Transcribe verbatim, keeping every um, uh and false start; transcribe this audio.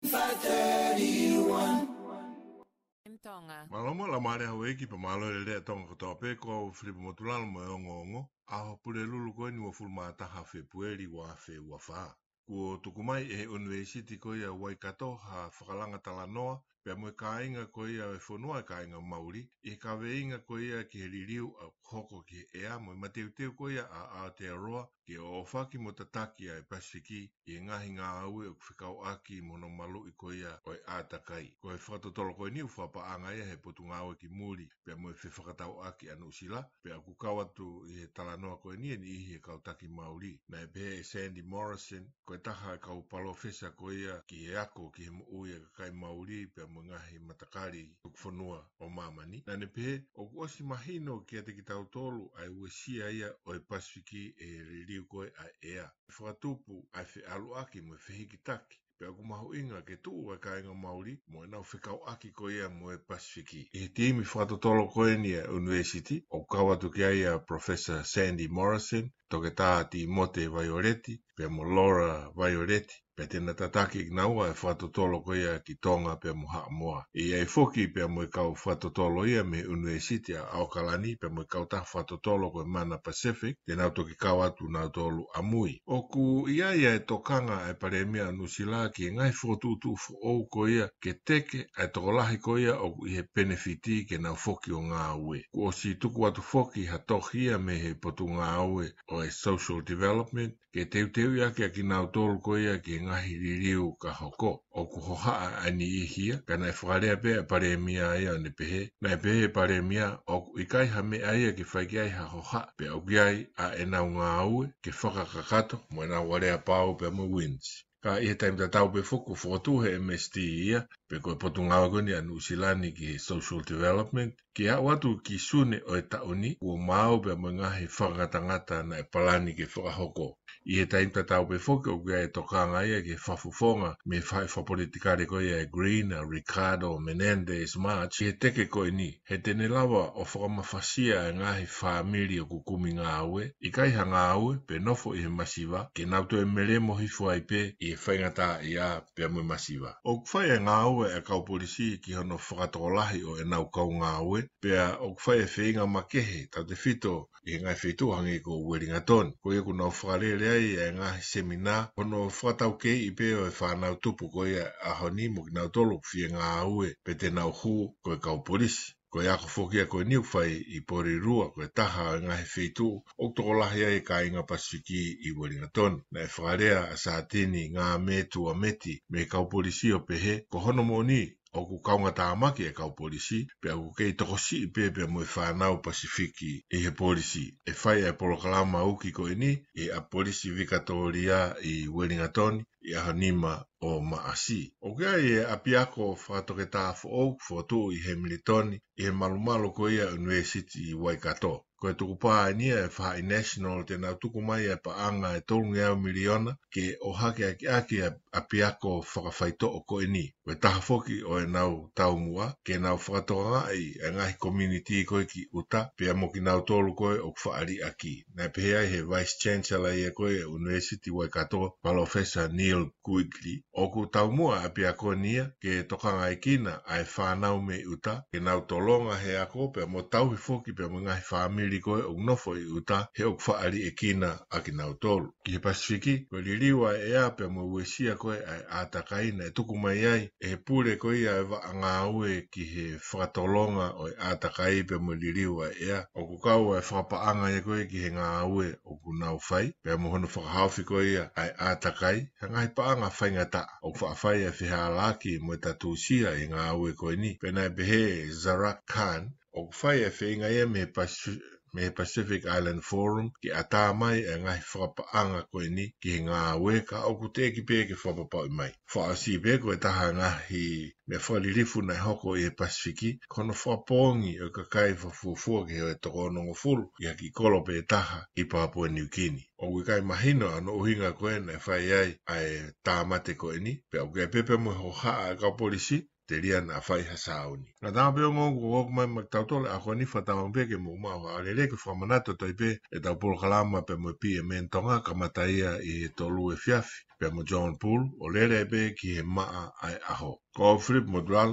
five thirty-one. M Tonga. Mālō mo e laumālie ʻa houʻeiki pea mālō e lelei ʻa Tonga kotoa pē, ko au Filipa Motulalo mo e ongoongo. ʻAho Pulelulu ko eni uofulu mā taha Fēpueli ua afe ua fā. Kuo tuku mai ʻe he ʻUnivēsiti ko ia Waikato ha fakalanga talanoa, pea mo e kāinga ko ia e fonua e kāinga Mauli, ʻi he kaveinga ko ia ki he liliu ʻoku hoko ki he ʻea mo e mateuteu ko ia ʻa Aotearoa, ke ʻoʻofaki mo tataki ʻa e Pasifiki ʻi he ngaahi ngāue ʻoku fekauʻaki mo hono maluʻi ko ia ʻo e ʻātakai. Ko e fakatotolo ko eni ʻoku fakapaʻanga ia he Potungāue ki Muli, pea mo e Fefakatauʻaki ʻa Nuʻusila, pea ʻoku kau atu ʻi he talanoa ko eni e niʻihi he kau taki Mauli. Naʻe pehē ʻe Sandy Morrison, ko e taha e kau palōfesa ko ia ki he ako ki he moʻui ʻa e kakai Mauli, pea mo e ngaahi matakali tuku fonua ʻo māmani. Naʻa ne pehē, ʻoku ʻosi mahino kiate kitautolu ʻa e uesia ia ʻo e Pasifiki ʻe he liliu ko ē ʻa e ʻea. Fakatupu ʻa e feʻaluʻaki mo e fehikitaki, pea ʻoku mahuʻinga ke tuʻu ʻa e kāinga Mauli mo ʻenau fekauʻaki ko ia mo e Pasifiki. ʻI he timi fakatotolo ko eni ʻa e ʻUnivēsiti, ʻoku kau atu ki ai ʻa Professor Sandy Morrison, Toketā Tīmote Vaioleti, pea mo Laura Vaioleti, pea te na tataki kinaua e fakatotolo ko ia ki Tonga pea mo Haʻamoa. ʻE ʻi ai foki pea mo e kau fakatotolo ia mei he ʻUnivēsiti ʻa ʻAokalani pea mo e kautaha fakatotolo ko e Mana Pacific, te nau toki kau atu nautolu ʻamui. ʻOku ʻi ai ʻa e tokanga ʻa e Palēmia ʻo Nuʻusila ki he ngaahi fokotuʻutuʻu foʻou ko ia ke teke ʻa e tokolahi ko ia ʻoku ʻi he penefiti ke nau foki ʻo ngāue. Kuo ʻosi tuku atu foki ha tohi ia mei he Potungāue ʻo e Social Development, ke teuteuʻi ʻaki ʻa kinautolu ko ia ki he ngaahi liliu ka hoko. ʻOku hohaʻa ʻa e niʻihi ia, ka naʻe fakalea pē ʻa e Palēmia ia ʻo ne pehē, naʻe pehē ʻe he Palēmia, ʻoku ʻikai ha meʻa ia ke fai ki ai ha hohaʻa, pea ʻoku ʻi ai ʻa ʻenau ngāue ke fakakakato mo ʻenau aleapau pea mo e WINZ. Ka ʻi he taimi tatau pē foki kuo fokotuʻu ʻe he M S D ia, pe ko e Potungāue ko eni ʻa Nuʻusila ni ki he Social Development, ke aʻu atu ki Sune ʻo e taʻu ni, kuo maau pea mo e ngaahi fakangatangata naʻe palani ke fakahoko. ʻI he taimi tatau pē foki ʻoku ʻi ai e tokanga ia ki he fakafofonga mei he faʻahi fakapolitikale ko ia e Green, ʻa Ricardo Menendez March, ʻi he teke ko eni, he te ne lava ʻo fakamafasia e ngaahi fāmili ʻoku kumi ngāue, ʻikai ha ngāue, pe nofo ʻi he masiva, ke nau toe melemo hifo ai pē ʻi he faingataʻaʻia pea mo e masiva. ʻOku fai e ngāue ʻa e kau polisi ki hono fakatokolahi ʻo ʻenau kau ngāue, pea ʻoku fai e feinga makehe, tautefito ʻi he ngaahi feituʻu hangē ko Uelingatoni. Ko ia ʻoku nau fakalele ai e ngaahi seminā, hono fakataukeiʻi pē ʻo e fānau tupu ko ia ʻaho ni mo kinautolu ʻoku fie ngāue pe te nau hū ko e kau polisi. Ko e ako foki ia ko eni ʻoku fai ʻi Porirua, ko e taha ʻo e ngaahi feituʻu ʻoku tokolahi ai e kāinga Pasifiki ʻi Uelingatoni. Naʻe fakalea ʻa Satini Ngāmetuameti mei he kau polisi ʻo pehē, ko hono moʻoni, ʻoku kaungatāmaki e kau polisi, pea ʻoku kei tokosiʻi pē pea mo e fānau Pasifiki ʻi he polisi. ʻE fai e polokalama uki ko eni ʻi he ʻapi polisi Vikatōlia ʻi Uelingatoni ʻi he ʻaho nima ʻo Maʻasi. ʻOku ʻi ai e ʻapiako fakatoketā foʻou fokotuʻu ʻi Hemilitoni, ʻi he malumalu ko ia ʻUnivēsiti Waikato. Ko e tukupā eni ia e faʻahi National te nau tuku mai e paʻanga ʻe tolungeau miliona ke ʻohake ʻaki ʻa e ʻapiako fakafaitoʻo ko eni. Ko e taha foki ʻo ʻenau taumuʻa ke nau fakatokangaʻi e ngaahi community ko ē ki ʻuta, pea mo kinautolu ko ē ʻoku faʻa liʻaki. Naʻe pehē ai he Vice Chancellor ia ko ē ʻUnivēsiti Waikato, Palōfesa Neil Quigley, ʻoku taumuʻa ʻapiako ni ia ke tokangaekina ʻa e fānau mei ʻuta, ke nau tolonga he ako pea mo tauhi foki pea mo e ngaahi fāmili ko ē ʻoku nofo ʻi ʻuta, he ʻoku faʻa liʻekina ʻa kinautolu. Ki he Pasifiki, ko e liliu ʻa e ʻea pea mo e uesia ko ē ʻa e ʻātakai naʻe tuku mai ai ʻe he pule ko ia e vaʻa ngāue ki he fakatolonga ʻo e ʻātakai pea mo e liliu ʻa e ʻea. ʻOku kau ʻa e fakapaʻanga ia ko ē ki he ngāue ʻoku nau fai, pea mo hono fakahaofi ko ia ʻa e ʻātakai, ha ngaahi paʻanga faingataʻa. ʻOku faʻa fai ʻa e fehālaaki mo e tatusia ʻi he ngāue ko eni. Pea naʻe pehē ʻe Zarak Khan, ʻoku fai e feinga ia mei he Pacific, mei he Pacific Island Forum ke ʻatā mai e ngaahi fakapaʻanga ko eni ki he ngāue, ka ʻoku teʻeki pē ke fakapapauʻi mai. Fakaʻosi pē ko e taha e ngaahi meʻa fakalilifu naʻe hoko ʻi he Pasifiki, ko hono fakapoongi ʻo e kakai fakafuofua ki he toko onongofulu ʻi ha kiʻi kolo pē taha ʻi Papua Niukini. ʻOku ʻikai mahino ʻa hono ʻuhinga ko ē naʻe fai ai ʻa e tāmate ko eni, pea ʻoku ʻi ai pē pea mo e hohaʻa ʻa e kau polisi, telia naʻa fai ha sāuni. Ngataʻanga pē ongoongo kuo ʻoku mai maʻa kitautolu ʻa e ʻaho ni, fakatauange pē ke mou maʻu ha lelei, ke fakamanatu atu ai pē ʻetau polokalama pea mo e P M N Tonga, kamata ia ʻi he tolu efiafi pea mo John Bull, ʻo lele ai pē ki he maʻa ʻa e ʻaho. Ko Philip Motulalo.